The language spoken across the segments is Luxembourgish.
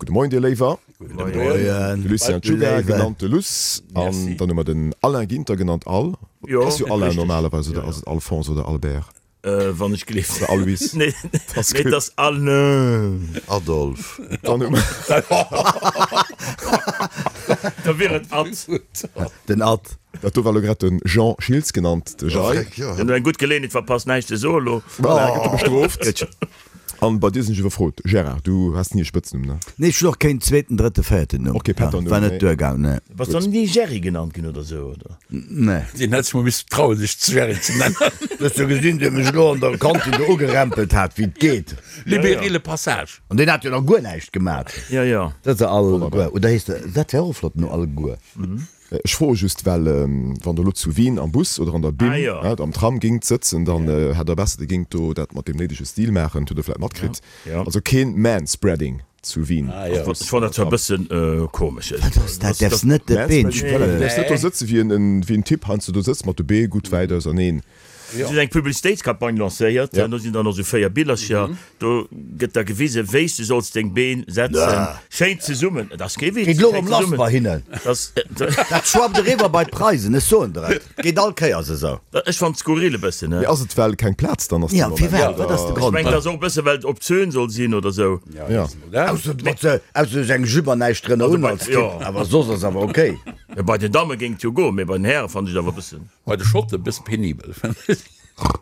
Gudde Moien dir Léiwer. Gudde Moien. De Lucien Czuga, genannt de Luss. An dann hu mer den Alain Ginter, genannt Al. Ass jo Alain normalerweis, oder ass et Alphonse oder Albert? Wann ech gleeft. Oder Alois. Nee, et ass Alain. Adolphe. Dann hu mer. Da wier et Ad. Den Ad. Dat do war elo grad de Jean Schiltz, genannt de Jay. Deen huet eng gutt Geleeënheet verpasst, näischt ze soen elo. Voilà, gëtt e bestrooft. An bei dir sinn ech iwwerfrot, Gérard, du has ni e Spëtznumm, ne? Nee, ech hunn och keen zweeten, drëtte, véierten Numm. Och kee Pätternumm, War net duergaang, nee. Bass du ni Gerry genannt ginn oder sou, oder? Nee. Deen hätt sech mol misste trauen, sech Gerry ze nennen. Du hues jo gesinn, dee mech elo an der Kantin do ugerempelt hat, wéi et geet. Libérer le passage. An deen hat jo nach guer näischt gemat. Jo, jo. Dat ass Alleguer. Oder heescht dat, dat wär och e flotten Numm, Alleguer. Ech froe just, well wann Der elo zu Wien am Bus oder an der Bim, ah, am Tram géingt sëtzen, dann hätt Der besser, Dir géingt do dat mat deem néidege Stil maachen. Hutt Der vläicht matkritt. Also keen Manspreading zu Wien am Bus. Ech fannen dat zwar e bëssen komesch. Wat ass dat? Däerfs net de Been Manspreading, voilà, du däerfs net do sëtze wéi en Typ heiansdo do sëtzt mat de Bee gutt wäit auserneen. Si hunn eng Publicitéitscampagne lancéiert, do sinn dann och esou 4 Billercher, do gëtt da gewisen, wéi s du solls deng Been setzen, schéin zesummen, et ass kee Witz, Geet elo erëm lass bei hinnen, dat schwappt eriwwer bei d'Preisen, ech soen der et, geet all Kéiers esou. Ech fannen et skurril e bëssen, ne? Mee ass et well keng Plaz dann ass? Jo, firwat, wat ass de Grond? Ech mengen et ass och e bësse well et obszön soll sinn oder esou. Jo. Ausser du hues eng Jupe an näischt drënner un als Typ, awer soss ass awer ok. Bei den Damme géing et jo goen, mee bei den Häre fannen ech et awer e bëssen. Bei de Schotte bësse penibel.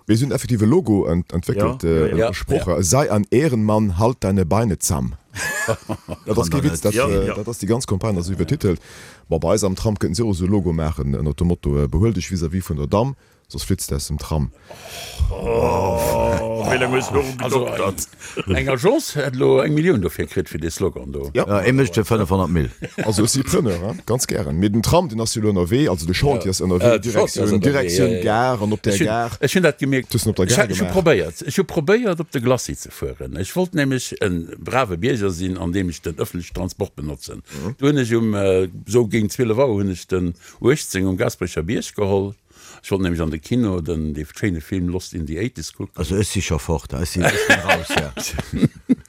Mir hunn effektiv e Logo entwéckelt, e Sproch, Sei ein Ehrenmann, halt deine Beine zamm. Dat ass kee Witz, dat ass déi ganz Campagne ass esou iwwertitelt. Bon, bei eis am Tram kënnten si och esou e Logo maachen ënnert dem Motto, Behuel dech vis-à-vis vun der Damm, soss flitts de aus dem Tram. Oh, wéi laang hues du doru gedoktert? Eng Agence hätt elo eng Millioun dofir kritt, fir dee Slogan do. Jo, ee mécht fir 500 Mille. Also ech si Preneur, hein, ganz gären. Mee den Tram, deen ass jo elo ënnerwee, also de Chantier ass ënnerwee, Direktioun, Direktioun Gare an op der Gare. Ech hunn dat gemierkt. Du hues en op der Gare gemaach. Ech hu probéiert, ech hu probéiert op de Glacis ze fueren. Ech wollt nämlech e brave Bierger sinn, andeem ech den ëffentlechen Transport benotzen. Du hunn ech um, sou géint 12 Auer hunn ech den 18 um Gaasperecher Bierg geholl. Ech wollt nämlech an de Kino den dee schéine Film Lost in the Eighties kucken. Also ech si scho fort, ech sinn ech sinn raus, ja.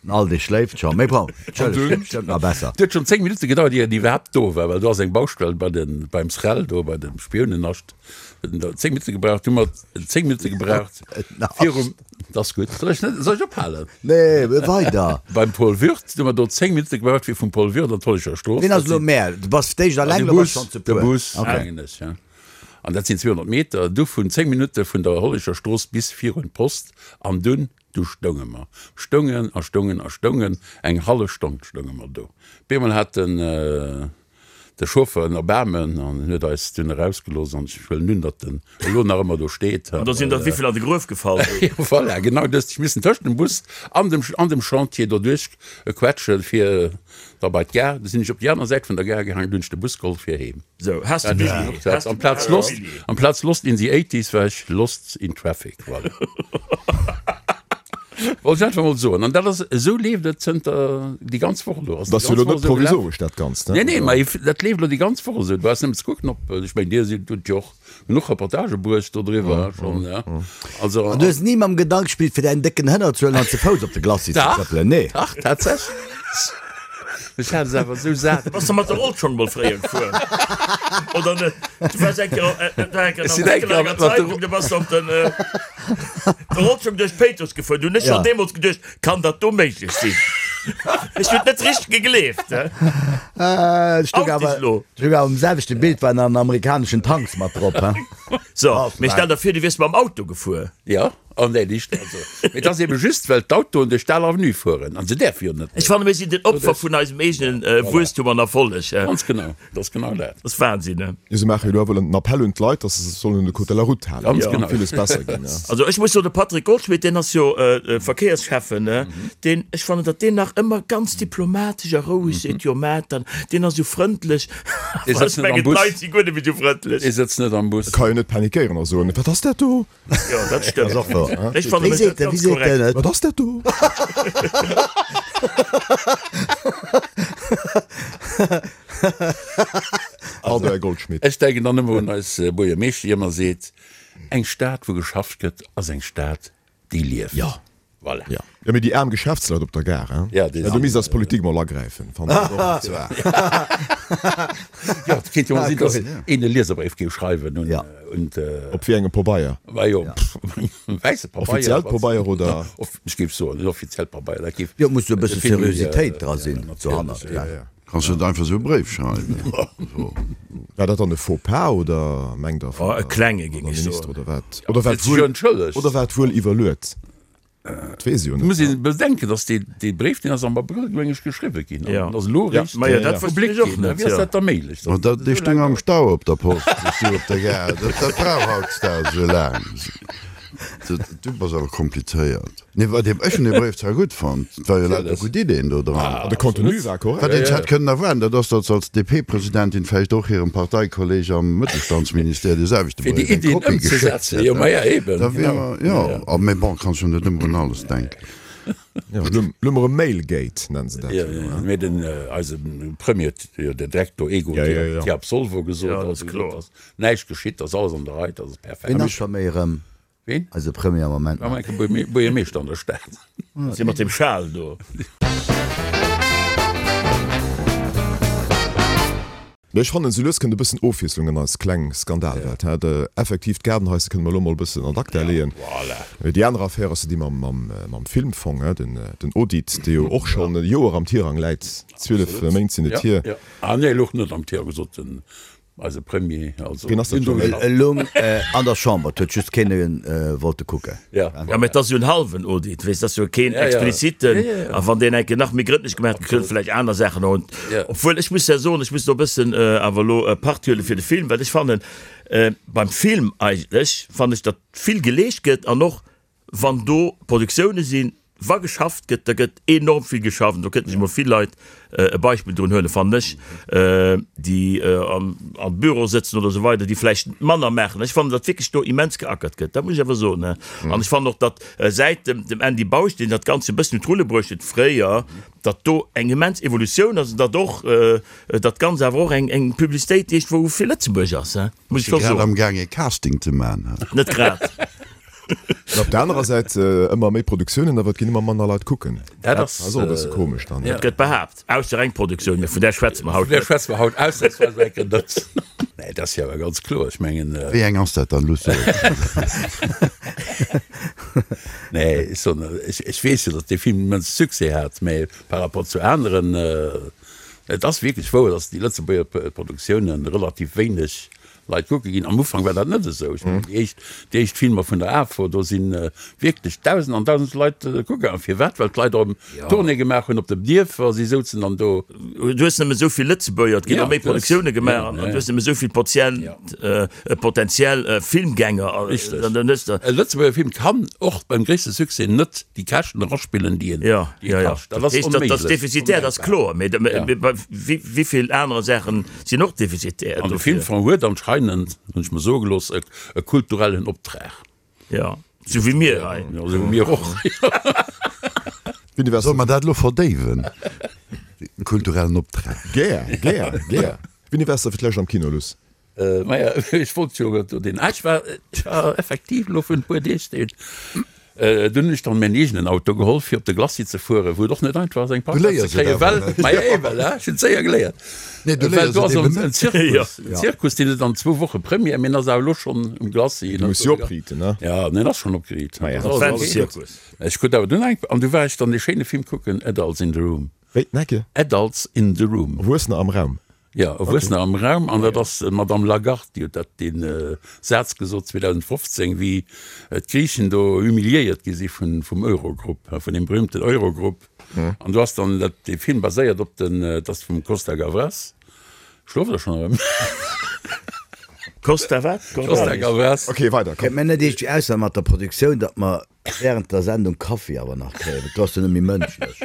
Den Aldi schléift scho, mee bon, entschëllegt, bestëmmt nach besser. Et huet schonn 10 Minutte gedauert ier en iwwerhaapt do war, well do ass eng Baustell bei den, beim SREL do, bei dem Spiounennascht. Huet en do 10 Minutte gebraucht, du hu mer 10 Minutte gebraucht virum, dat ass gutt, soll ech net, soll ech ophalen? Nee, weider. Beim Paul Würth, du hu mer do 10 Minutte gebraucht fir vum Paul Würth an d'Hollecher Strooss. Ween ass elo mär? Du bass d'éischt alleng, elo bass schonn ze De puer. Bus, mengen ech, ja. An dat sinn 200 Meter, du vun 10 Minutte vun der Hollecher Strooss bis virun d'Post. An dunn, du stounge mer. Stoungen a stoungen a stoungen. Eng hallef Stonn stounge mer do. Op eemol hat den, de Chauffeur en Erbaarmen an huet eis dunn erausgelooss. An ech huelen un, datt en elo nach ëmmer do steet. An do sinn der wéivill an de Gruef gefall? Jo, voilà, genau dëst. Ech missen tëscht dem Bus an dem, an dem Chantier doduerch quetschen, fir da bei d'Gare. Du sinn ech op déi aner Säit vun der Gare gaangen, du hunn ech de Bus geholl fir heem. Sou, has de Billy? Has de Amplaz Lost, amplaz Lost in the Eighties war ech Lost in Traffic, voilà. Wollt ech einfach mol soen. An dat ass, esou leeft et zënter déi ganz Woch elo. Dat ass jo elo net provisoresch, dat Ganzt, ne? Nee, nee, mä dat leeft elo déi ganz Woch esou. Du brauchs nëmmen ze kucken, ob, ech mengen, Dir sidd, hutt jo och genuch Reportagë bruecht dodriwwer schonn, ja. Also. An du hues ni mam Gedank gespillt, fir däin décken Hënner ze huelen an ze Fouss op de Glacis ze trëppelen, nee? Dach, tatsächlech. Ech hat es awer esou sat. Bass de mat der Rollschong mol fréier gefuer oder net? Du waars eng Kéier, dat war eng Kéier Ech sinn eng an Kéier enger mat der Zeitung, du bass op den der Rollschong duerch Péitruss gefuer. Du hunn ech schonn deemools geduecht, kann dat do méiglech sinn? Ech hunn et net richteg gegleeft. Ech stoung Out awer, dich lo. ech stoung awer um selwechte Bild, waren an amerikaneschen Tanks mat drop, he? So, mee stell der vir, du wiers mam Auto gefuer. Jo. Oh nee, nicht, also, mee et ass eben just, well d'Autoen duerch d'Al Avenue fueren an se däerfe jo net Ech fanne mir sinn den Opfer vun eisem eegenen Wuesstum an Erfolleg. Ganz genau, dat ass genau dat. Dat ass Wahnsinn, ne? Jo, se maache jo elo awer en Appell un d'Leit, dass se sech sollen un de Code de la Route halen. Ganz genau. Villes besser ginn, ja. Also ech muss soen, de Patrick Goldschmidt, deen ass jo Verkéiersschäffen, ne, deen, ech fannen, datt deen nach ëmmer ganz diplomatesch a roueg seet, jo mä dann, deen ass esou frëndlech. Dee Awer sëtzt ech net am mengen, Bus. d'Leit si guer net méi esou frëndlech. Dee sëtzt net am Bus. E ka jo net panikéieren a soen, Wat ass dat do? Jo, dat stëmmt. Ass och wouer. Ech fanne Wéi mech seet dat en, wéi ganz seet korrekt. en et? Wat ass dat do? Pardon, Här Goldschmidt. Ech denken dann ëmmer un eis Buergermeeschter, déi ëmmer seet, Eng Stad, wou geschafft gëtt, ass eng Stad, déi lieft. Jo. Voilà. Ja. Jo, mee déi aarm Geschäftsleit op der Gare, hein? Ja, déi Do misst eis Politik mol agräifen, fannen ech och zwar. Jo, et kéint jo mol sinn, dass een e Lieserbréif géif schreiwen un, un d'. Op wéi engem Pobeier? Bah jo, wäisse Pabeier. Offiziellt Pobeier oder? Ech géif soen, en offiziellt Pabeier, dat géif. Jo, et muss jo e bësse Seriositéit dra sinn dohannert, gell? Kanns du net einfach esou e Bréif schreiwen? War dat dann e Faux pas oder mengt der vun e klenge géing ech soen. Oder wat? Oder war et wuel, oder war et wuel iwwerluet? Dat weess ech jo net. Muss een bedenken, datt dee dee Bréif, deen ass am Abrëll meng ech geschriwwe ginn an ass elo eréischt Ma jo, dat wosst ech och net. Wéi ass dat da méiglech? Ma dat, dee stoung am Stau op der Post, dee stoung op der Gare. Dat, dat brauch hautdesdaags esou laang. Du bass awer komplizéiert. Nee, wat ech un deem Bréif zwar gutt fonnt, et war jo lauter gutt Ideen do dran. An de Contenu war korrekt. Wat een hätt kënnen erwaarden, dat ass, datt se als DP-Presidentin vläicht och hirem Parteikolleg am Mëttelstandsministère dee selwechte Fir déi Bréif eng Iddien Kopie geschéckt ëmzesetzen, jo, hätt. ma ja, eben, Da wier genau. mer, jo, a mee bon, kanns jo net ëmmer un alles denken. Jo, elo elo mer e Mailgate, nennen se dat Jo, jo, jo, hein. mee den, eise Premier huet jo direkt do ego Ja, ja, ja. te absolvo gesot, Ja, dat also ass gesot, kloer. dass näischt geschitt, dass alles an der Rei, dass ass perfekt. Ween ass scho méi erëm Ween? Eise Premier am Moment nach. Am Buergermeeschter an der Stad. Si mat dem Schal do. Mee ech fannen, sou lues kënnt e bëssen Ofwiesslung an eis kleng Skandalwelt. He, de effektiv, d'Gaardenhaise kënne mer elo mol e bëssen an acta leeën. Mee déi aner Affär ass jo déi mam, mam, mam Filmfong, he, den, den Audit, dee jo och schonn e Joer am Tirang läit. 12 Méint sinn et hier. Ah nee, louch net am Tirang, gesot den Eise Premier, also. Wien ass dat scho? E loung an der Chamber, et huet just keen wollte kucken. Ja. Ja, mä et ass jo en hallwen Audit, weess, et ass jo keen expliziten. A wann deen eng Kéier nach méi grëndlech gemaach gëtt, kënne vläicht aner Saachen och. Obwuel, ech muss ja soen, ech muss do e bëssen awer elo Part huele fir de Film, well ech fannen, beim Film eigentlech fannen ech, datt vill geleescht gëtt an och Wann do Produktioune sinn, wa geschafft gëtt, da gëtt enorm vill geschafft. An do kënnten sech emol vill Leit e Beispill drun huelen, fannen ech, déi am Büro sëtzen oder esou weider, déi vläicht manner maachen. Ech fannen, datt wierklech do immens geackert gëtt, dat muss ech awer soen. An ech fannen och, datt säit dem Andy Bausch, deen dat Ganzt e bëssen un d'Rulle bruecht huet fréier, datt do eng immens Evolutioun ass an datt och dat Ganzt awer och eng Publicitéit iergendwou fir Lëtzebuerg ass, muss ech scho Grad soen. am Gaang ee Casting ze man. Net grad. An op der anerer Säit ëmmer méi Produktiounen, awer et ginn ëmmer manner Leit kucken. Dat ass och e bësse komesch dann. Dat gëtt behaapt, ausser eng Produktioun, mä vun där schwätze mer haut Vun där net. schwätze mer haut ausnamsweis eng Kéier net. Nee, dat ass jo awer ganz kloer. Ech mengen. Wéi eng ass dat dann, Luss? Nee, ech soen, ech weess jo, datt dee Film immens Succès hat, mä par rapport zu aneren, et ass wierklech wouer, datt déi Lëtzebuerger Produktiounen relativ wéineg Leit kucke ginn. Am Ufank war dat net esou. Ech mengen, déi éischt, déi éischt Filmer vun der AFO, do si wierklech Dausend an Dausend Leit kucke gaangen. Firwat? Well d'Leit erëm Tournée gemaach hunn op den Dierfer, si souzen dann do. Du hues nëmme esou vill Lëtzebuerger, et ginn och méi Produktioune gemaach an du hues nëmme esou vill Potient, potentiell Filmgänger. Richteg. E Lëtzebuerger Film kann och beim gréisste Succès net déi Käschten eraspillen, déi en kascht. Dat ass onméiglech. Dat ass defizitär, dat ass kloer. Mee wéi vill anere Saachen Sinn och defizitär. An de Filmfong huet anscheinend, hunn ech mer soe gelooss, e kulturellen Optrag. Jo, sou wéi mir hei. Jo, sou wéi mir och. Solle mer dat elo verdéiwen, de kulturellen Optrag? Gär, gär, gär. Wéini waars de fir d'lescht am Kino, Luss? Maja, ech wollt jo do deen, ah, ech war, ech war effektiv elo virun e puer Deeg deen, dunn hunn ech dann mäin eegenen Auto geholl fir op de Glacis ze fueren, wou et och net einfach ass eng Parkplaz ze kréien, well, maja eben, ech hunn et séier geléiert, well do ass en Zirkus, en Zirkus, deen huet an zwou Woche Première, mee en ass awer elo schonn um Glacis. Du muss jo opriiten, ne? Ja, en ass schonn opgeriit. Maja. Zirkus. Ech krut awer dunn eng, an du war ech dann dee schéine Film kucken, Adults in the Room. Wéi, Necke? Adults in the Room. Erwuessener am Raum. Jo, Erwuessener am Raum, an dat ass d'Madame Lagarde, déi huet dat, dee Saz gesot 2015, wéi d'Griichen do humiliéiert gi si vum Eurogrupp, vun deem berühmten Eurogrupp. An do ass dann dat, dee Film baséiert op den, et ass vum Costa Gavras, schloft Der schonn erëm? Costa wat? Costa Gavras. Ok, weider, komm. Kéint mir net iergendwéi ausmaachen mat der Produktioun, datt mer Während der Sendung Kaffi awer nach kréien, well do ass jo net méi mënschlech.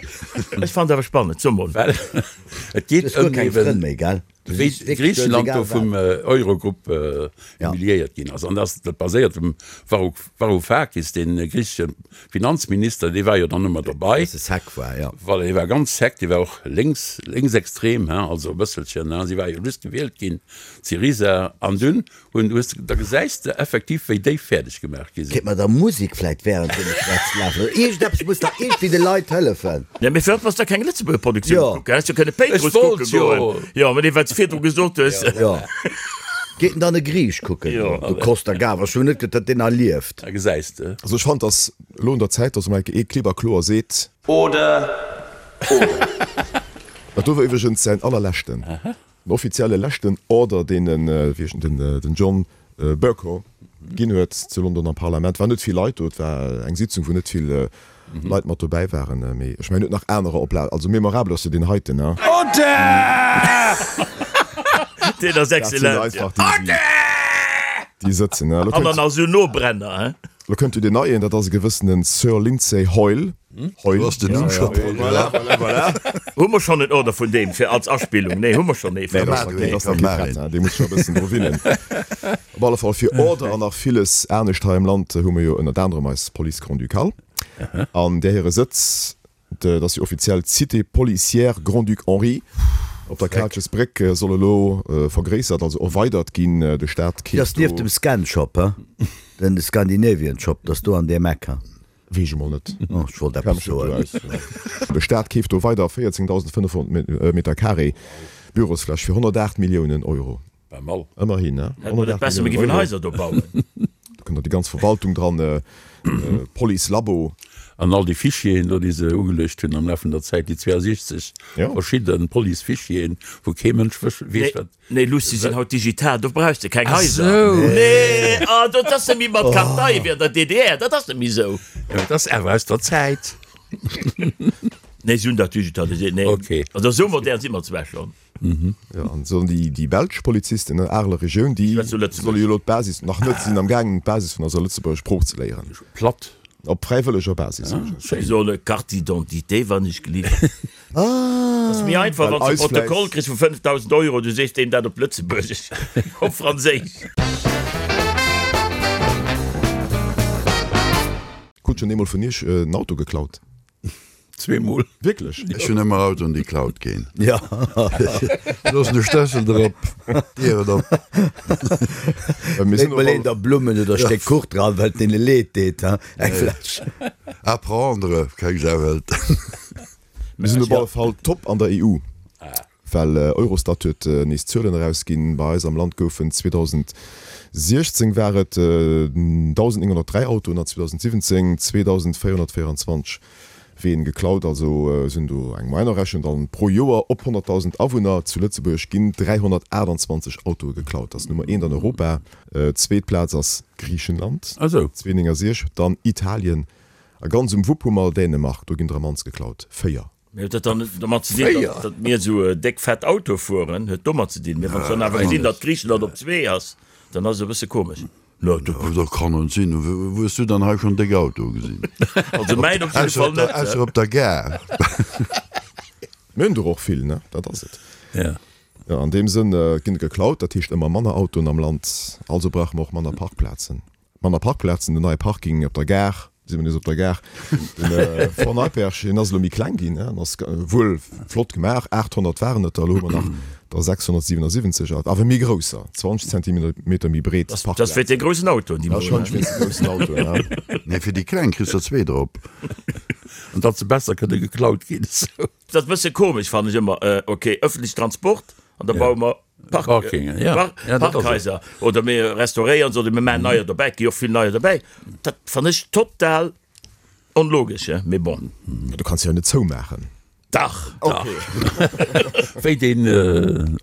Ech fannen et awer spannend, so mol. Well et geet Du hues guer ëm keng eben. Frënn méi, gell? Wéi Griichenland do vum Eurogrupp humiliéiert ginn ass. An dat baséiert um Varoufakis, dee griichesche Finanzminister, dee war jo dann ëmmer dobei. Bësse sec war, jo. Voilà, dee war ganz sec, dee war och lénks, lénksextrem, hein, also e bësselchen, hein. Si war jo just gewielt ginn, d'Syriza. An dunn Hunn, hues de, da gesäis de effektiv, wéi déi fäerdeg gemaach gi sinn. Kéint mer da Musek vläit während deem ech schwätz lafen oder iergendeppes muss dach iergendwéi de Leit hëllefen. Jo, mee firwat bass da keng Lëtzebuerger Produktioun Jo. kucken? Häss jo kënne Péitruss Ech wollt kucke jo. goen. Jo, mee wat s de virdru gesot hues. Jo. Geet en dann e Griich kucken Jo. goen? De Costa Gavras, ech hunn net geduet, datt deen nach lieft. Da gesäis de. Also ech fannen, dass elo un der Zäit ass, emol eng Kéier ee klipp a kloer seet. Oder, oder. Dat do war iwwregens säin allerleschten. Den offizielle leschten Order, deen den John Bercow ginn huet zu London am Parlament, war net vill Leit do. Et war eng Sitzung, wou net vill Leit mat dobäi waren. Mee ech mengen, en huet nach anerer op Lager. Also memorabel ass jo deen heiten, ne? Order! Deen ass Dat sinn excellent, einfach déi, déi sëtzen, ne? An dann nach esou Nobrenner, he? Lo kënnt jo deen neien, dat ass e gewëssene Sir Lindsay Hoyle. Heul. Du hast den Numm scho drun. Voilà, voilà, voilà. Hu mer schonn en Order vun deem fir als Aspillung? Nee, hu mer schonn ee. Nee, dat ass nach kee prett, dee muss scho e bëssen dru winnen. Op alle Fall fir Order an nach villes anescht hei am Land hu mer jo ënnert anerem eis Police Grand-Ducale. An där hire Sëtz, dat ass jo offiziell d'Cité policière Grand-Duc Henri op der Kaalchesbréck, soll elo vergréissert, also erweidert ginn. De Staat Déi ass keeft do. nieft dem Scan-Shop, he? Den Scandinavian Shop, dat ass do an deem Eck, he? Weess ech emol net. Oh, ech wollt eppes soen. De Staat keeft do weider 14.500 Meter Carré Bürosfläch fir 108 Milliounen Euro. Pas mal. Ëmmerhin, ne? Hätt mer net besser, mir géifen Haiser do bauen. Do kënnt dann déi ganz Verwaltung dran, Police, Labo. An all déi Fichieren do, déi se ugeluecht hunn am Laf vun der Zäit, déi 62 verschidde Police-Fichieren, wou kee Mënsch weess, wat. Nee Luss, déi sinn haut digital, do brauchs de keng Haiser. Nee, ah, dat ass net méi mat Kartei wéi an der DDR, dat ass net méi esou. Jo, dat ass awer aus der Zäit. Nee, si hunn dat digitaliséiert. Nee, Okay. also esou modern si mer zwar schonn. Jo, an sollen déi, déi belsch Polizisten, ne, Areler Regioun, déi Schwätz du Lëtzebuergesch? solle jo elo d'Basis, nach net, si sinn am gaangen d'Basis vun eiser Lëtzebuerger Sprooch ze léieren. Platt. Op fräiwëlleger Basis. Si solle Carte d'identité, wann ech gelift. Ass méi einfach, wann s de e Protokoll kriss vu 5.000 Euro, du sees deem dat op Lëtzebuergesch, op Franséisch. Krut schonn eemol vun iech en Auto geklaut? Zweemol. Wierklech? Ech hunn ëmmer Autoen, déi klaut ginn. Jo. Loossen de Stëssel drop, d'Dieren op. Léit mol een der Blummen oder e Stéck Kuch dran, well et deene leed deet, hein, eng Fläsch. À prendre, keng Sau hëlt. Mir sinn op alle Fall top an der EU, well Eurostat huet nees Zuelen erausginn. Bei eis am Land goufen 2016 war et 1.903 Autoen an 2017 2.424 Ween geklaut. Also sinn do eng Moyenne errechent. An pro Joer op 100.000 Awunner zu Lëtzebuerg ginn 328 Autoe geklaut. Dat ass Nummer eent an Europa. Zweet Plaz ass Griichenland, 269, dann Italien A ganz um Wupp hu mer Dänemark, do ginn der am mannst geklaut, 4. Mee huet dat dann domat ze dinn, datt datt mir esou déck fett Autoe fueren? Huet domat ze dinn? Mee wann s dann awer gesinn, datt Griichenland op zwee ass, dann ass et e bësse komesch. No, dat kann net sinn. Wou hues du dann hei schonn déck Autoe gesinn? Also mäin op jidde Fall net. Ausser op der Gare. Mir hunn der och vill, ne? Dat ass et. Ja. Jo, an deem Sënn ginn der geklaut, dat heescht ëmmer manner Autoen am Land, also brauche mer och manner Parkplazen. Manner Parkplazen, den neie Parking op der Gare, si mer nees op der Gare, den Fort Neipperg, deen ass elo méi kleng ginn, en ass wuel flott gemaach, 800 waren et der, elo hu mer nach der 677, awer méi grousser, 20 Zentimeter méi breet Parkplazen. Dat ass fir déi groussen Autoen, déi mer hunn. Warscheinlech wéinst de groussen Autoen, ja. Nee, fir déi kleng kriss der zwee drop. An datt se besser kënne geklaut ginn. Dat ass e bësse komesch, fannen ech ëmmer. Ok, ëffentlechen Transport an da baue mer Park, Parkingen, ja. Park, Ja, dat ass et. Parkhaiser oder mir restauréieren se oder mir maachen neier dobäi. Et gi jo och vill neier dobäi. Dat fannen ech total onlogesch, he, mee bon. Du kanns se jo net zoumaachen. Dach, dach. Wéi deen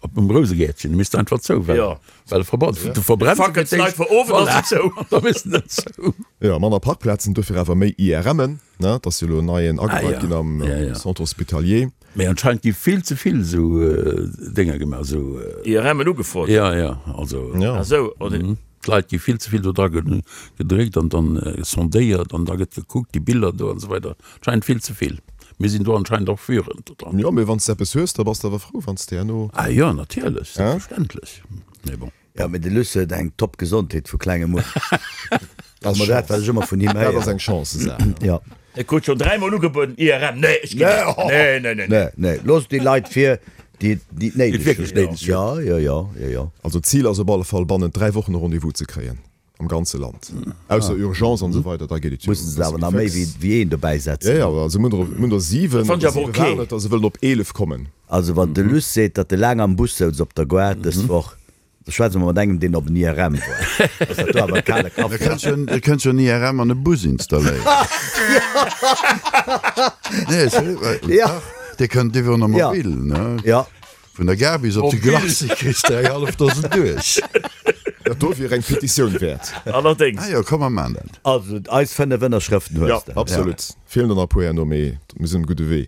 op dem Rousegäertchen, dee misst einfach zou, well, Ja. well e verbrannt, du verbrenns Fackelt fir d'éischt. d'Leit vor Owend ass en zou. Da misst en net zou. Jo, manner Parkplazen, dofir awer méi IRMen, ne? Et ass jo elo en neien Ah ageweit ja, ginn am ja, ja. Centre hospitalier. Mee anscheinend gi vill ze vill esou Dénger gemaach, esou. IRMen ugefrot? Ja, ja, also. Ja. Ah sou, oder? D'Leit gi vill ze vill do dra gedréckt an dann sondéiert an da gëtt gekuckt, déi Biller do an esou weider. Anscheinend vill ze vill. Mir sinn do anscheinend och führend do dran. Jo, mee wann s de eppes hues, da bass de awer frou, wann s de herno. Ah jo, natierlech, selbstverständlech. Mee bon. Jo, mee de Luss huet eng top Gesondheet vu klengem un. Dat ass dat, wat ech ëmmer vun him héieren. Dat ass eng Chance-Saach. Jo. Ech krut schon dräimol ugebueden, IRM, nee, ech ginn net. Nee, nee, nee, nee. Nee, loosst déi Leit vir, déi déi et néideg hunn. Jo, jo, jo, jo, jo. Also d'Zil ass op alle Fall bannent 3 Wochen e Rendez-vous ze kréien am ganze Land, ausser Urgence an esou weider, da geet et jo Mussen se awer nach méi wéi wéi een dobäi setzen. Jo, jo, also mir hunn der 7, Dat fannt ech awer ok. waren et der, se wëllen op 11 kommen. Also wann de Luss seet, datt e laang am Bus souz op der Gare dës Woch, Da schwätze mer mat engem, deen op en IRM woart. Ass dat do awer e kale Kaffi? Da kënns jo en IRM an e Bus installéieren. Nee, sérieux, dach, dee kënnt iwwer en Mobil, ne? Ja. Vun der Gare bis op de Glacis kriss de eng hallef Dosen duerch. Dat do wier eng Petitioun wäert. Allerdéngs. Ah jo, komm mer maan dat. Also, eis 5 Ënnerschrëften hues de. Ja, absolut. Feelen der nach e puer herno, mee mir sinn um gudde Wee.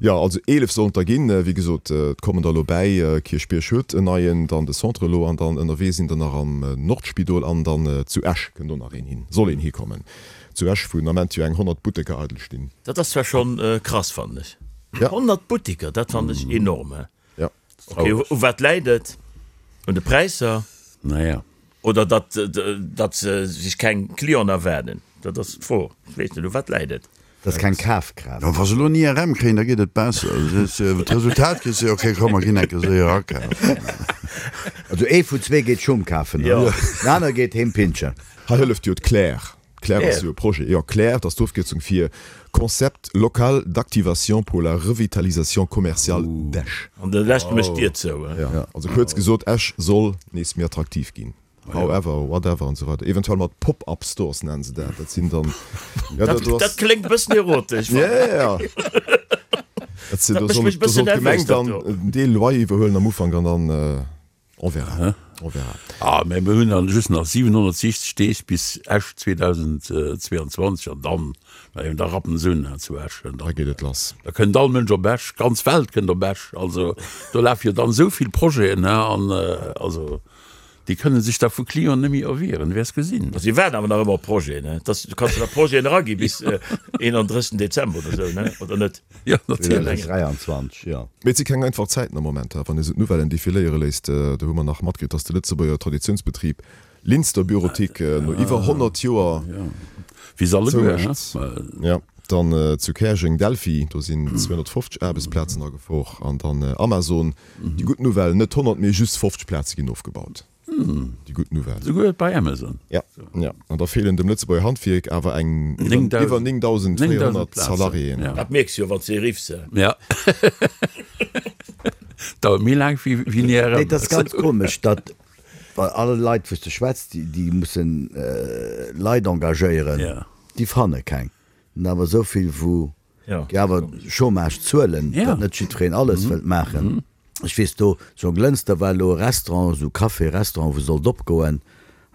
Jo, also 11 sollen et der ginn. Wéi gesot, et kommen der elo bäi. Kierchbierg huet en neien, dann de Centre elo an dann ënnerwee sinn der nach am Nordspidol an dann zu Esch kënnt och nach een hin, soll een hikommen. Zu Esch, wou den Ament jo eng 100 Butteker eidel stinn. Dat ass zwar schonn krass, fannen ech. 100 Butteker, dat fannen ech enorm. Ja. Ok, u wat läit et? Un de Präisser? Naja. Oder datt, datt se sech keng Clienten erwaarden? Dat ass d'Fro. Ech weess net, u wat läit et? Dat ass keng Kafkraaft. Jo, wa se elo en IRM kréien, da geet et besser. D'Resultat kriss de, ok, komm, mer ginn eng Kéier séier akafen. Also ee vun zwee geet Schung kafen, den anere geet heem pinschen. Hei hëlleft jo d'Claire. D'Claire ass jo e Projet, jo, Claire, dat ass d'Ofkierzung fir Concept local d'activation pour la revitalisation commerciale d'Esch. An de Leschte mécht d'Dier zou, he? Jo, also kuerz gesot, Esch soll nees méi attraktiv ginn, however, whatever an esou weider. Eventuell mat Pop-up Stores nennen se dat. Dat sinn dann, jo, dat do ass. Dat kléngt e bëssen erotesch. Jo, jo, jo. Dat sinn, do soll, do soll d'Gemeng dann en Deel Loyer iwwerhuelen am Ufank an dann. On verra, on verra. Ah, mä mir hunn dann just nach 760 Deeg bis Esch 2022 an dann, mä da rappen se un zu Esch. Da geet et lass. Da kënnt all Mënsch op Esch, d'ganz Welt kënnt op Esch. Also do lafe jo dann esou vill Projeten, an also déi kënne sech da vu Clienten net méi erwieren, du wäers gesinn. Ma si waarden awer nach ëmmer op Projeten, ne? Dass, du kanns jo nach Projeten eragi bis 31 Dezember oder esou, ne? Oder net? Jo, natierlech. 2023, jo. Mee et si keng einfach Zäiten am Moment, wann ee sou d'Nouvellen defiléiere léisst. Do hu mer nach matkritt, datt de Lëtzebuerger Traditiounsbetrib Linster Bureautique no iwwer 100 Joer zoumécht. Jo, dann zu Käerjeng Delphi, do sinn 250 Aarbechtsplazen a Gefor. An dann Amazon, déi gutt Nouvelle, net 100, mee just 50 Plaze ginn ofgebaut. Déi gutt Nouvelle. Souguer bei Amazon. Ja, ja. An da feelen dem Lëtzebuerger Handwierk awer eng iwwer 9.400 Salariéen. Dat mierks jo, wann s de riffs. Ja. Dauert méi laang wéi en IRM. Nee, dat ass ganz komesch, datt bei alle Leit, wou s de schwätz, déi mussen Leit engagéieren, déi fanne keng. An awer esou vill, wou Déi awer Chômage zuelen, datt net jiddwereen alles wëllt maachen. Ech weess do, zu Jonglënster war elo e Restaurant, esou Café, Restaurant, wou sollt opgoen.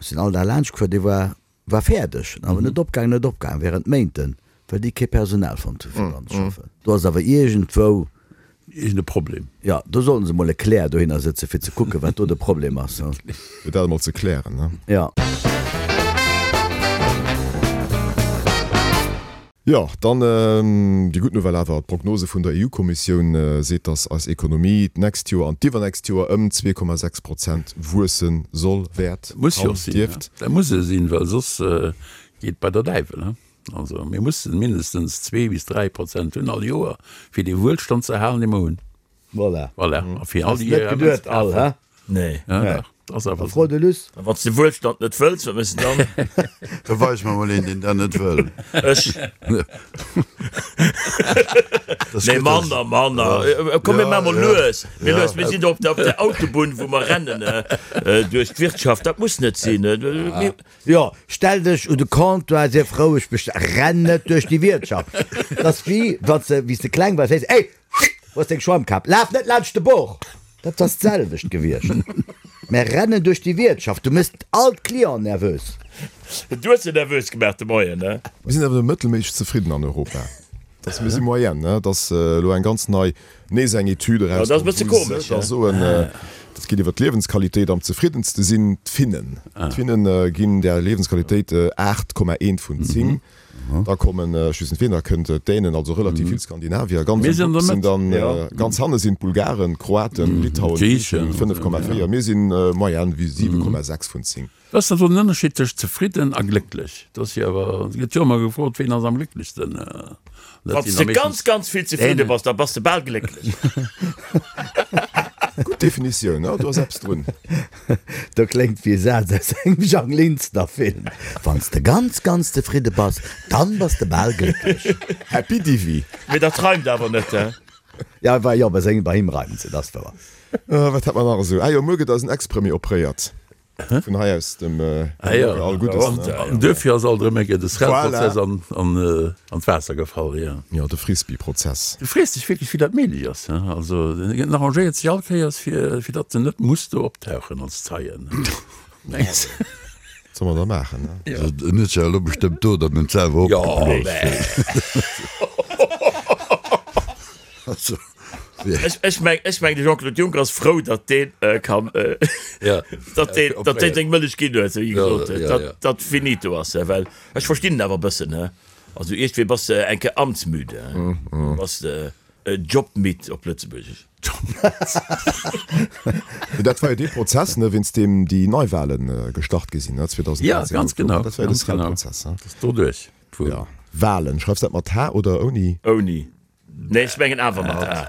Ech sinn all Dag laanscht gefuer, dee war, war fäerdeg, awer net opgaangen, net opgaangen, während Méinten, well déi kee Personal fonnt hu fir dran ze schaffen. Do ass awer iergendwou. Iergend e Problem. Jo, do sollten se mol e Claire dohinner sëtzen, fir ze kucken, wat do de Problem ass. Fir dat emol ze klären, ne? Jo. Jo, dann déi gutt Nouvelle awer, D'Prognose vun der EU-Kommissioun seet, datt eis Ekonomie d'nächst Joer an d'iwwernächst Joer ëm 2,6 Prozent wuesse soll, wäert, Muss jo och sinn, dierft. Dat muss e sinn, well soss geet bei der Däiwel. Also mir mussen mindestens zwee bis 3 Prozent hunn all Joer, fir dee Wuelstand ze erhalen, dee mer hunn. Voilà. Voilà. A fir all Hast net geduet all, hä? Nee. Ja, dach, dat ass awer Fro de Luss. A wann s de Wuelstand net wëlls, wat méchs de dann? Da weis mer mol een, deen dat net wëll. Ech. Das Nee, gëtt manner, manner. Komm, mir maache mol lues. Mir lues. Mir sinn do op der, op der Autobunn, wou mer rennen duerch d'Wirtschaft. Dat muss net sinn. Mir. Jo, stell dech un de Comptoir, sief roueg, bestell, renn net duerch déi Wiertschaft. Dat ass wéi wann s de, wéi s de kleng waars, héiers, Ey, wou ass deng Schwammkap? Laf net laanscht de Bord! Dat ass d'selwecht gewiescht. Mä rennen duerch déi Wiertschaft, du méchs all d'Clienten nervös. Du hues se nervös gemaach de Moien, ne? Mir sinn awer mëttelméisseg zefridden an Europa. Dass mir si Moyenne, ne? Dass elo eng ganz nei, nees eng Etüd erauskomm, wou se da soen, dat geet iwwer d'Liewensqualitéit, am zefriddenste sinn d'Finnen. D'Finne ginn där Liewensqualitéit 8,1 vun 10. Da kommen, ech weess net wien, da kënnt d'Dänen, also relativ vill Skandinavier. Ganz um Wupp sinn dann, ganz hanne sinn d'Bulgaren, d'Kroaten, Litauen, Griichen, 5,4. Mir sinn Moyenne wéi 7,6 vun 10. Wat ass dann do den Ënnerscheed tëscht zefridden a glécklech? Do ass jo awer, et gëtt jo ëmmer gefrot, ween ass am glécklechsten? Wann s de ganz, ganz vill zefridde bass, da bass de bal glécklech. Gutt Definitioun, jo, do ass eppes drun. Do kléngt wéi e Saz aus engem Jang Linster Film, Wann s de ganz, ganz zefridde bass, dann bass de bal glécklech. Happy Divi. Mee dat reimt awer net, he? Ja, jo, bei sengem, bei him reimt se, dat ass wouer. Wat hat mer nach esou? Ah jo, muer gëtt eisen Ex-Premier opréiert. Vun hei aus dem Bürger all Guddes. An duerfir ass alt erëm eng Kéier de Srel-Prozess an d'Waasser gefall, jo. Jo, de Frisbee-Prozess. Du frees dech wierklech, wéi dat méiglech ass, he? Also, en arrangéiert sech all Kéiers, fir datt en net muss do optauchen als Zeien. Mengs de? Wat soll mer da maachen, ne? En huet sech elo bestëmmt do dann net selwer opgebloos. Also. Ech meng, ech meng de Jean-Claude Juncker ass frou, datt deen kann, datt deen, datt deen seng Mëllech ginn huet, wéi gesot huet, datt datt finito ass, well ech verstinn en awer e bëssen, he. Also iergendwéi bass de eng Kéier amtsmüde, he, bass de jobmidd op Lëtzebuergesch. Mee dat war jo dee Prozess, ne, wéinst deem déi Neiwahlen gestart gi sinn, ne, 2013. Ja, ganz genau. Dat war jo de Srel-Prozess, he. Dat ass doduerch. Ja. Wahlen, schreifs dat mat H oder ouni? Ouni. Nee, ech mengen awer mat A.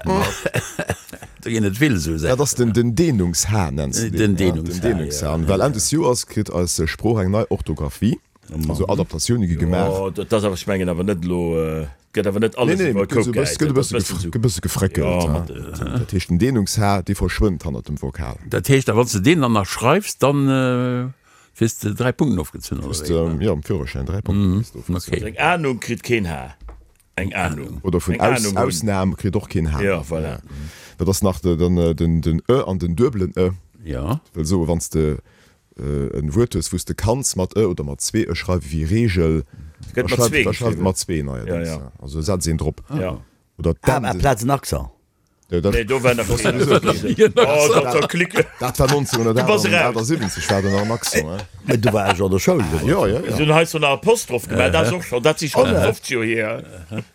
Do ginn et vill esou Saachen. Dat ass den den Dehnungs-H nenns de deen. Den Dehnungs-H, Den Dehnungs-H. An well Enn des Joers kritt eis Sprooch eng nei Orthografie, also Adaptatioune gi gemaach. Jo, dat ass awer, ech mengen awer net elo, et gëtt awer net alles iwwer e Koup gehäit. Nee, nee, et gëtt e bësse gefréckelt. Dat heescht, den Dehnungs-H, dee verschwënnt hannert dem Vokal. Dat heescht, a wann s de deen dann nach schreifs, dann kriss de 3 Punkten ofgezunn, oder wéi? Jo, am Führerschäin 3 Punkten kriss de ofgezunn. Eng Ahnung kritt keen H. Eng Ahnung. Oder vun Aus, Ausnahm kritt och keen H. Ja, voilà. Dat ass nach den, den, den ë an den duebelen ë. Ja. Wëll soen, wann s de en Wuert hues, wou s de kanns mat ë oder mat zwee ë schreiwen, wéi Reegel, da schreif, da schreif et mat zwee neierdéngs. Ja, ja. Also setz een drop. Ja. Oder d'N. Amplaz en Accent. Nee, do war nach keen. Oh, dat war klick. Dat war 1978, war do nach en Accent, hein? Mee do war ech an der Schoul. Jo, jo, jo. Si hunn hei so nach Apostroph gemaach, dat ass och schonn, dat si schonn 50 Joer hier.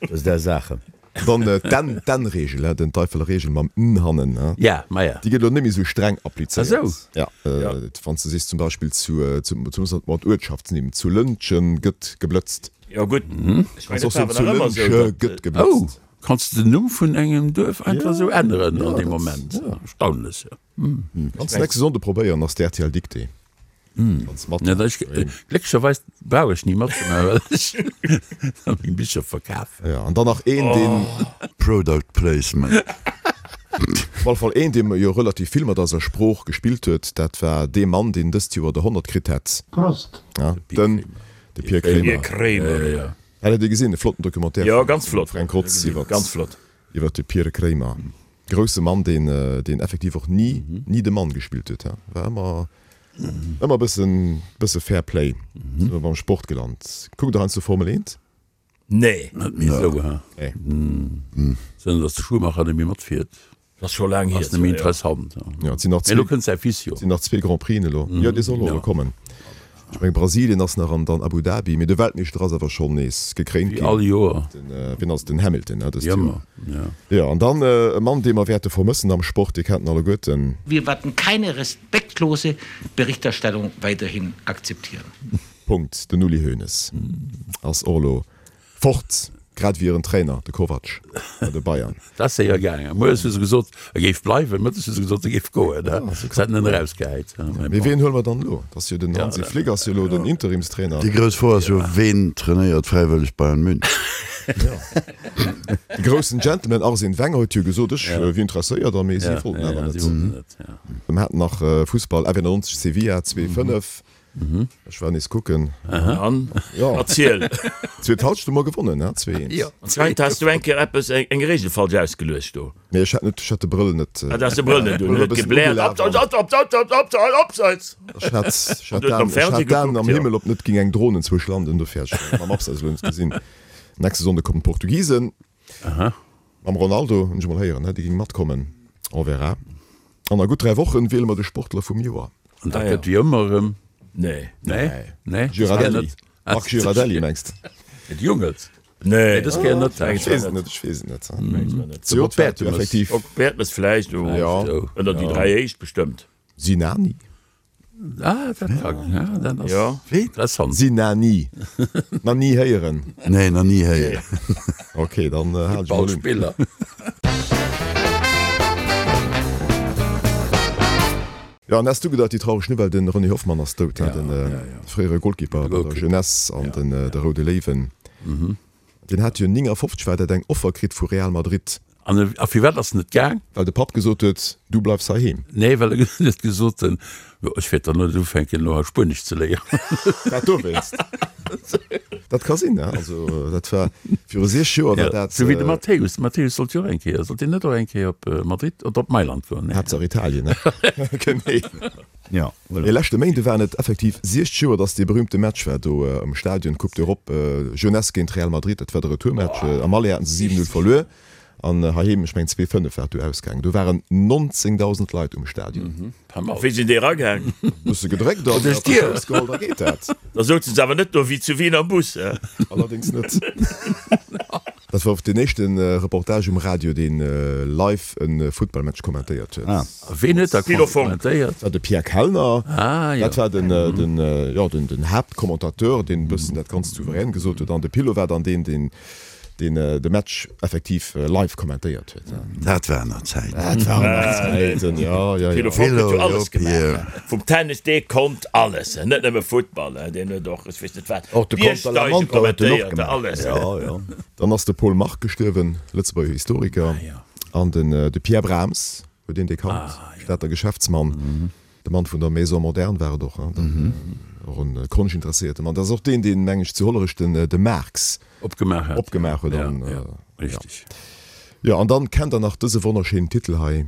Dat ass där Saachen. Dann d'N, d'N-Reegel, hein, den Teifeler Reegel mam N hannen, hein. Ja, ma ja. Déi gëtt elo net méi esou streng applizéiert. Ah sou. Ja, wann s de sees zum Beispill zu, zu, zu, mat Uertschaftsnimm, zu Lëntgen gëtt geblëtzt. Jo gutt, ech mengen, dat war awer nach ëmmer esou, dat. Gëtt geblëtzt. Oh! Kanns de den Numm vun engem Duerf einfach esou änneren an deem Moment? Erstaunlech, jo. Kanns de nächste Sonnde probéieren, ass d'RTL Dictée. Kanns mat. Glécklecherweis brauch ech ni matzemaachen, well ech da meng Bicher verkafen. Jo, an dann nach een, deen. Product Placement. Op alle Fall een, dee jo relativ vill mat eiser Sprooch gespillt huet, dat war dee Mann, deen dëst Joer de 100 kritt hätt. Prost! Den, de Pir Kremer. Pir Kremer. Hat Dir gesinn, e flotten Documentaire Jo, ganz flott. vum Fränk Rotz iwwert Ganz flott. iwwert de Pir Kremer. Grousse Mann, deen deen effektiv och ni ni de Mann gespillt huet, he. War ëmmer ëmmer e bëssen bësse Fair Play. Sinn mer beim Sport gelant. Kuckt Der heiansdo Formel 1? Nee. Net méi esou, he. Nee. Zënter datt de Schumacher net méi matfiert. Ass scho laang hier. Ass net méi interessant. Jo, et sinn nach zwee. Mee elo kënnt säi Fils jo. Et sinn nach zwee Grand Prixen elo. Jo, dee soll och elo kommen. Ech mengen Brasilien ass nach an dann Abu Dhabi. Mee de Weltmeeschter ass awer schonn nees gekréint ginn. Wéi all Joer. Den, wien ass et? Den Hamilton, ne, dëst Joer. Ëmmer, jo. Jo, an dann e Mann, dee mer wäerte vermëssen am Sport, Dir kennt en alleguerten. Wir werden keine respektlose Berichterstattung weiterhin akzeptieren. Punkt. Den Uli Hoeneß ass och elo Fort, grad ewéi hiren Trainer, de Kovac bei de Bayern. Dat ass séier gaangen. Moies hu se gesot, e géif bleiwen, mëttes hu se gesot, e géif goen. Se hätten en erausgehäit. Mee wien huele mer dann elo? Et ass jo den Hansi Flick ass jo elo den Interimstrainer. Déi grouss Fro ass jo, Ween trainéiert fräiwëlleg Bayern München? De groussen Gentleman Arsene Wenger huet jo gesot, ech wier interesséiert, a mee si wollten awer net. Mir haten nach Fussball, F91 Sevilla 2, 5. Ech war nees kucken. An? Jo. Erziel. Zweet Halschent hu mer gewonnen, ne? 2, 1. Jo. Anscheinend has du eng Kéier eppes, eng Regel falsch ausgeluecht do. Nee, ech hat net, ech hat de Brëll net. Ah, du has de Brëll net un, huet gebläert, Abseits, Abseits, Abseits, Abseits, Abseits! Ech hat, ech hat d'Aen, ech hat d'Aen am Himmel, ob net ging eng Dron enzwousch landen, dofir hat ech mam Abseits elo net gesinn. Nächste Sonnde kommen d'Portugisen. Mam Ronaldo, hunn ech emol héieren, dee géing matkommen. On verra. An a gutt 3 Wochen wiele mer de Sportler vum Joer. An dat gëtt wéi ëmmer erëm. Nee. Nee? Nee? Girardelli. Marc Girardelli mengs de? Et Jungels? Nee, dës Kéier net. Ech weess et net, ech weess et net. De Bob Bertemes. Effektiv. Bob Bertemes vläicht, ënner déi 3 éischt bestëmmt. Sinani? Ah, dat ka, ja, dat ass ja. interessant. Sinani. Nach ni héieren? Nee, nach ni héieren. Ok, dann hal ech mol un. Footballspiller. Jo, an häss du gedacht, déi traureg Nouvelle, de René Hoffmann ass dout, hein, de fréiere Golkipper bei der Jeunesse an den de Roude Léiwen. Deen hat jo 59 war dat eng Offer kritt vu Real Madrid. An a firwat ass en net gaang? Well de Papp gesot huet, du bleifs heiheem. Nee, well en huet gesot, jo, ech wäert dann net ufänken elo hei Spuenesch ze léieren. Dat dowéinst. Dat ka sinn, ne? Also dat war viru 6 Joer war dat. Sou wéi de Matthäus. De Matthäus sollt jo och eng Kéier, sollt deen net och eng Kéier op Madrid oder op Mailand goen? Nee. Haaptsaach Italien, ne? Genee. Ja, voilà. Mee leschte Méinde waren et effektiv 60 Joer, datt dee berühmte Match war do am Stadion, Coupe d'Europe, Jeunesse géint Real Madrid. Dat war de Retourmatch. Am Aller haten se 7, 0 verluer an heiheem, ech mengen 2, 5 war et du ausgaangen. Do waren 19.000 Leit um Stadion. Pas mal. Wéi sinn déi eragaang? Bësse gedréckt an Duerch d'Dier. Schouss geholl, da geet dat. Da souzen se awer net do wéi zu Wien am Bus, he? Allerdéngs net. Dat war och deen éischte Reportage um Radio, deen live e Futtballmatch kommentéiert huet. A ween huet da kommentéiert? Dat war de Pierre Kellner. Ah jo. Dat war den, den, jo, den, den Haaptcommentateur, deen e bëssen dat Ganzt souverän gesot huet. An de Pillo war dann deen, deen deen de Match effektiv live kommentéiert huet. Dat waren nach Zäiten. Dat waren nach Zäiten, jo, jo, jo. Pillo Fonck huet jo alles gemaach. Vum Tennis, dee konnt alles, net nëmme Futtball, deen huet och, ech weess net wat, Och de Biergsteige Contre-la-montre huet en och kommentéiert, gemaach. alles. Jo, jo. Dann ass de Paul Marc gestuerwen, Lëtzebuerger Historiker, an den de Pierre Brahms, huet een dee kannt, Stater Geschäftsmann. De Mann vun der Maison Moderne war et och, hein, och en konschtinteresséierte Mann. Dat ass och deen, deen, meng ech, zu Hollerech den de Marx opgemaach hat. Opgemaach huet. Ja, ja, richtig. Jo, an dann kennt der nach dëse wonnerschéinen Titel hei.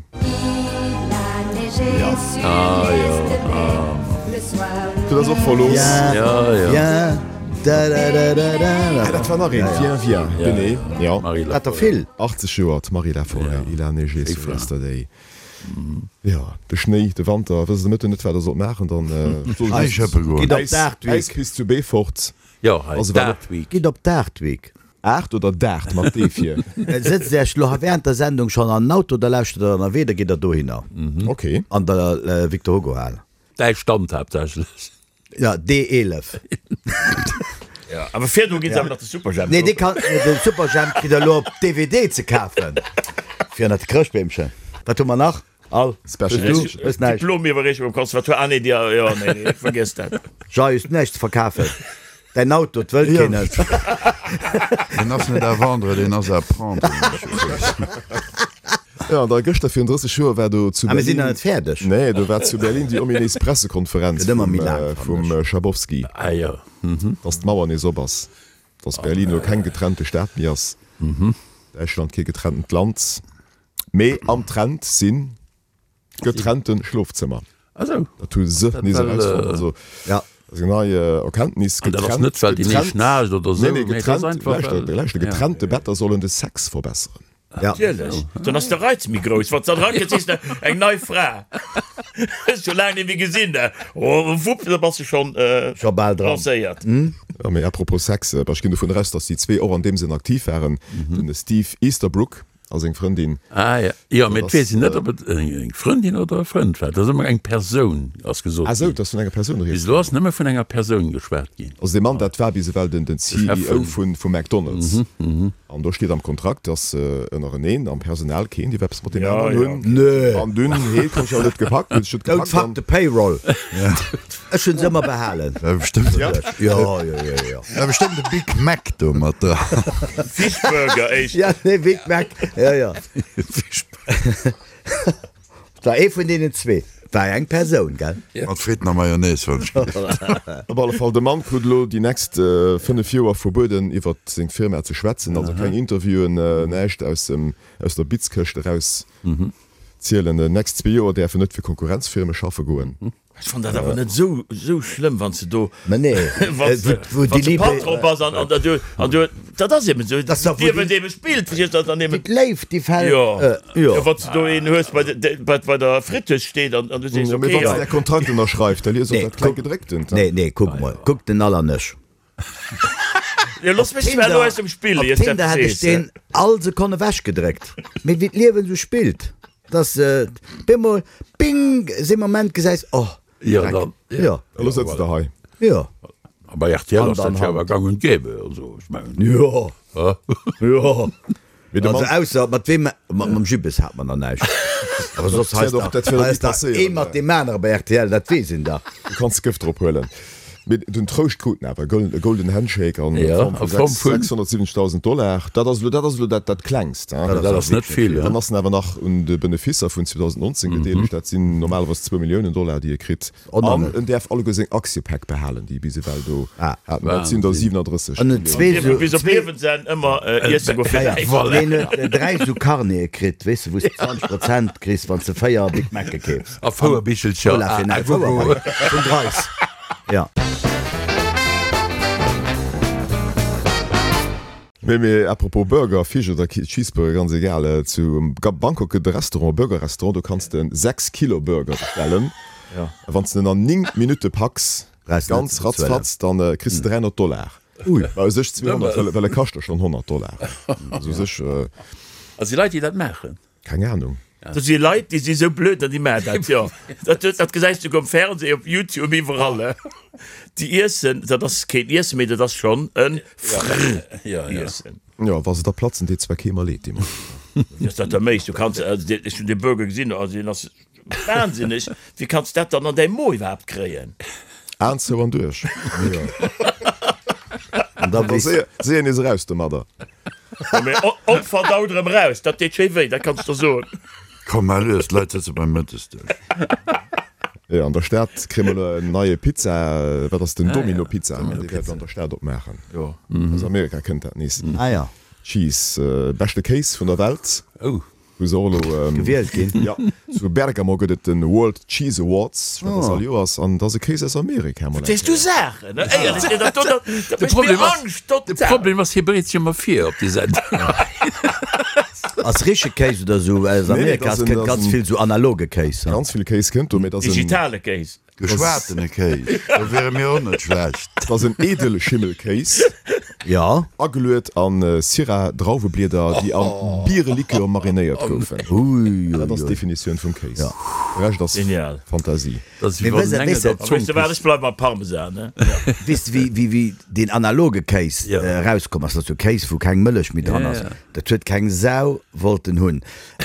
Ja. Ah, jo, ah. Du ass och verlooss. Ja, ja. Da, da, da, da, da. Ah, dat war nach een. Viens, viens. Genee, jo. Hat der vill. 80 Joer, d'Marie Laforêt, Il a neigé sur yesterday. Jo, de Schnéi, de Wanter, wësst de Mëtten net wat der sollt maachen, dann Eis schëppe goen. Gitt op d'Aart Week. Äispist zu Beefort. Jo, hei d'Aart Week. Gitt op d'Aart Week. Aart oder Daart mat D vir? Sëtzt Iech lo während der Sendung schonn an den Auto, da lauschtert der ënnerwee, da gitt der dohinner. Ok. An der Victor Hugo Hal. Däi Stand haaptsächlech. Ja, D11. Ja, awer virdru ginn se awer nach de Superjhemp Nee, dee kann, de Superjhemp kritt der elo op DVD ze kafen. Fir ënnert de Chrëschtbeemchen. Wat hu mer nach? All. Special Hues du? Edition. Hues näischt? Diplomiwwerreechung am Conservatoire. Ah nee, déi, jo, nee, nee, vergiess dat. Jay, hues du näischt ze verkafen? Däin Auto, 't wëllt keen net. Deen ass net à vendre, deen ass à prendre, hunn ech gewuess. Jo, an da gëschter virun 30 Joer war do zu Ah, mir sinn Berlin. nach net fäerdeg. Nee, do war zu Berlin déi ominéis Pressekonferenz Gëtt ëmmer vum, méi laang, fannen vum ech. Schabowski, Ah jo. dass d'Mauer nees op ass, dass Berlin elo keng getrennte Stad méi ass, Däitschland kee getrenntent Land, mee am Trend sinn Getrennte Schlofzëmmer. Ah sou. Dat hu se Dat nees well, erausfonnt. Also, Ja. dat ass eng nei Erkenntnis. An dat ass net, well déi Getrennt, nees schnaarcht oder nee, sou, nee, mee et ass getrennt, einfach, lauschter, well, lauschter, ja. getrennte Better sollen de Sex verbesseren. Ja. Natierlech, dann ass de Reiz méi grouss. Wann s de dann erakënns, sees de, eng nei Fra, hues scho laang net méi gesinn, da, oh, wupp, da bass de schonn Scho bal dran. lancéiert. Ja, mee apropos Sex, ech ginn dovun eraus, dass déi zwee och an deem Sënn aktiv waren, den Steve Easterbrook A seng Frëndin. Ah ja, jo, mee et weess een net, ob et eng Frëndin oder e Frënd war. Et ass ëmmer eng Persoun, ass gesot Ah sou, ginn. et ass vun enger Persoun Bis rieds elo gaangen. ass nëmme vun enger Persoun geschwat ginn. Also dee Mann, dat war bis ewell den De Chef CEO vun. vu McDonald's. An do steet am Kontrakt, dass ënnereneen am Personal keen dierf eppes mat deem Ja, aneren ja. hunn. Nö. An dunn, hee konnt jo net gepackt, huet sech net Don't gepackt fuck an. the payroll. Ech hunn se ëmmer behalen. War bestëmmt, Ja. Jo, jo, jo, jo. war bestëmmt e Big Mac do mat dran. Fishburger éischter. Ja, nee, Big Mac. Ja, ja. Et war ee vun deenen zwee. War eng Persoun, gell? Mat Fritten a Mayonnaise, wann ech gelift. Op alle Fall, de Mann krut elo déi nächst 5 Joer verbueden, iwwer seng Firma ze schwätzen. Also keng Interviewen, näischt aus dem, aus der Bitzkëscht eraus zielen. Déi nächst zwee Joer däerf en net fir Konkurrenzfirme schaffe goen. Ech fann dat awer net esou esou schlëmm, wann s de do, Mä nee, wann s de, wou wann déi s de Liebe, Patron bass an, an du, an du, dat ass eben esou, Dat ass dach, wou d'Liewen déi, eben spillt, verstees du, dann wéi eben, d'Léift, déi fält, jo, jo. jo, wann s de do een hues, bei de, bei, bei der Fritteuse steet an, an du sees, Jo, mee okay, wann s ja. de däi Kontrakt ënnerschreifs, da lies och Nee, dat kleng kuck, Gedrécktent. nee, nee, kuck mol, kuck den Allernech. Jo, looss mech zwar elo aus dem Spill, Op ier s Tinder dat hätt ech sees. deen all Sekonn ewechgedréckt. Mee wéi d'Liewen esou spillt, dass bemol, bing, see Moment gesäis, oh, Jo, Dreck. dann, Jo. Elo sëtzt der hei. Jo. A bei rtl Hand ass dat an jo awer Hand. gang und gäbe, also ech mengen. Jo. Jo. Mee de Also Mann. ausser mat weem, mat mam Jibbes hat mer nach näischt. Awer soss Dat hei wär doch, dat wär hei doch ass ni dach passéieren. ee mat deem anere bei rtl, dat weess een dach. Du kanns Gëft drop huelen. Mee den Trouscht krut en awer, e golden Handshake an Ja, Form a vu Form vun. 670.000 Dollar. Dat ass elo, dat ass elo dat, dat Klengst. Dat ass Dat ass net vill, Dann ja. ass en awer nach un de Benefisser vun 2019 gedeelegt. Dat sinn normalerweis zwou Milliounen Dollar, déi e kritt. An en däerf alleguer seng Aktiepäck behalen, déi e bis ewell do hat. Dat sinn der 37 An huet zwee Milliounen. sou, Bis op zwee, Liewensenn ëmmer iesse goe fir näischt. Voilà. Deen huet dräi sou Carnete kritt, weess de, wou s de 20 Prozent kriss, wann s de véier Big Mac'e keefs. A Fouerbichelcher. Cola fir näischt. Fouer vun Dreis. Ja. Mee, mee à propos Burger, Fisch oder Cheeseburger, ganz egal, zu Bangkok gëtt e Restaurant, e Burger-Restaurant, do kanns de 6 Kilo Burger bestellen. A wann s de en an 9 Minutte packs, ganz ratzfatz, dann kriss de 300 Dollar. Ui. Mä u sech 200, well, well e kascht der schonn 100 Dollar. Also u sech. A si Leit, déi dat maachen? Keng Ahnung. Do si Leit, déi si sou blöd an déi maachen dat, jo. Dat, dat gesäis du um Fernseh, op Youtube, iwwerall. Déi iessen, dat ass keen Iessen méi, dat ass schonn e Frr-Iessen. Jo, wa se da platzen, deet zwar kee mer leed dee Moment. Wéi ass dat da méiglech? Du kanns, also ech hunn dee Burger gesinn, also deen ass wahnsinneg. Wéi kanns du dat dann an däi Mo iwwerhaapt kréien? Aen zou an duerch. An da Da weess. séier, séier nees eraus domadder. Mee onverdaut erëm raus, dat deet schéi wéi, dat kanns de soen. Komm, mar lues, d'Leit sëtze beim Mëttesdësch. Jo, an der Stad kréie mer elo en neie Pizza, wat ass den Domino Pizza, dee wäert an der Stad opmaachen. Aus Amerika kënnt dat nees. Ah ja. Cheese, beschte Kéis vun der Welt. Oh. Wou se och elo Gewielt ginn. Jo, zu Bergamo gëtt et den World Cheese Awards, wat ass all Joers, an et ass e Kéis aus Amerika mol Wat eng sees du Kéier. Saachen, ne? Éierlech, dat do, dat De mécht mir Problem ass, Angscht de total. Problem ass, hie bereet sech ëmmer vir op déi Sendung. Ass richtege Kéis oder sou aus Nee, nee, Amerika? dat ass Et en, kënnt dat ass ganz en vill sou analoge Kéis. ganz vill Kéis kënnt do, mee et ass en, Digitale Kéis. Geschwatene Kéis, do wiere mir och net schlecht. Et ass en Edelschimmelkéis. Jo. Ageluet a Syrah-Drauweblieder, déi a Bierelikör marinéiert goufen. Ui, Dat ass ui, ui. d'Definitioun vum Kéis. De Rescht ass Genial. Fantasie. Dat ass Mee wéi wann wëss, en Engel wëss, der A Zong weess de wat, küsst. ech bleiwe mam Parmesan, ne? Weess de, wéi, wéi, wéi deen analoge Kéis Jo. erauskomm ass? Dat ass jo Kéis, wou keng Mëllech méi dran Ja, ass. ja. Dat huet keng Sau wollten hunn.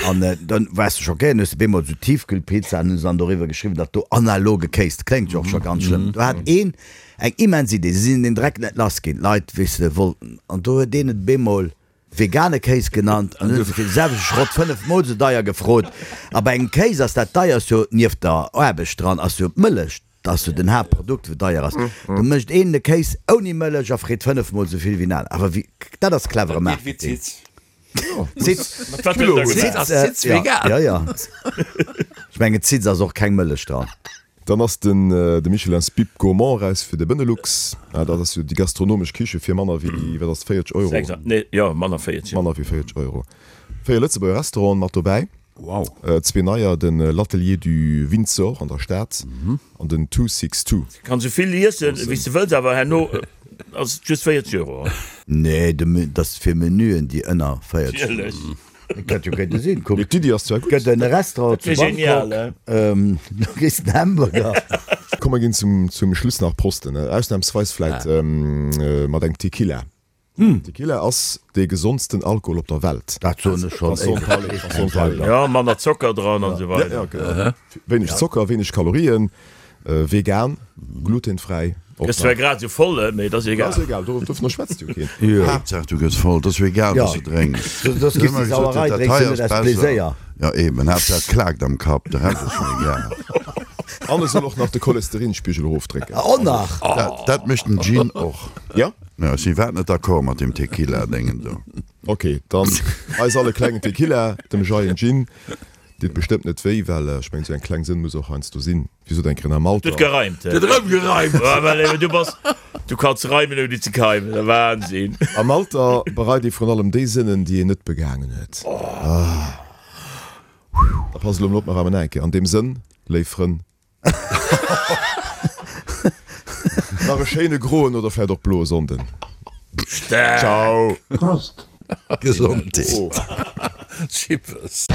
An dann waars de schockéiert, hues de bemol esou Tiefkühlpizza an hunn se dann doriwwer geschriwwen, datt do analoge Kéis, dat kléngt jo och scho ganz schlëmm. Do hat een eng immens Idee, se sinn deen Dreck net lass ginn, d'Leit, weess de, wollten, an do huet een et bemol vegane Kéis genannt an hunn se fir de selwechte Schrott 5 mol esou deier gefrot. A bei engem Kéis ass dat deierst jo, nieft der Aarbecht dran, ass jo d'Mëllech, dat ass jo den Haaptprodukt wou deier ass. Do mécht een de Kéis ouni Mëllech a freet 5 mol esou vill wéi en aner. Awer wéi, dat ass clevere Marketing. Zitz, Zitz vegan. Ja, ja. Ech mengen Zitz ass och keng Mëllech dran. Dann ass den de Michelin's Bib Gourmand eraus fir de Benelux. Dat ass jo déi gastronomesch Kiche fir manner wéi, wat ass et, 40 Euro? Nee, jo, manner 40. Manner wéi 40 Euro. Véier Lëtzebuerger Restauranten mat dobäi. Wow. Zwee neier, den L'Atelier du Windsor an der Stad an den Two Six Two. Kanns esou vill iessen wéi s de wëlls, awer herno ass et just 40 Euro. Nee, dat ass fir Menüen déi ënner 40 Euro. Natierlech. Dat hätt jo kéinte sinn. Kuck, Mee d'Iddi ass zwar gutt. gëtt en Restaurant zu Dat wier genial, Bangkok, do kriss de en Hamburger. Komm mer ginn zum Schluss nach prosten, ausnahmsweis vläit mat engem Tequila. Tequila ass dee gesondsten Alkohol op der Welt. Dat soen ech schonn éiweg. Jo, manner Zocker dran an esou weider. Ja, genau. Wéineg Zocker, wéineg Kalorien, vegan, glutenfräi. Gëss zwar grad esou voll, mee et ass egal. Ass egal, dovunner schwätzt jo keen. Haaptsaach du gëss voll, et ass jo egal wat s du drénks. Soss giss de Sauerei, drénks du net aus Pleséier. Jo eben, Haaptsaach et klaakt am Kapp, de Rescht ass mir egal. An e soll och nach de Cholesterinspigel erofdrécken. Och nach? Dat mécht den Gin och. Jo? Jo, ech sinn iwwerhaapt net d'accord mat deem Tequila-Déngen do. Ok, dann eis all e klengen Tequila, dem Jay en Gin. Deet bestëmmt net wéi, well ech mengen, esou eng kleng Sënn muss och heiansdo sinn. Wéi sot eng Kéier am Alter. Huet gereimt, he? Huet erëm gereimt! Ah, well eben, du bass, du kanns reimen ouni ze keimen, Wahnsinn! Am Alter bereit ee vrun allem déi Sënnen, déi een net begaangen huet. Da pass elo mol op, mer reimen nach eng Kéier. An deem Sënn, léif Frënn. Nach e schéine groen oder vläit och bloe Sonnden. Staark! Ciao! Prost! Gesondheet! Chippes!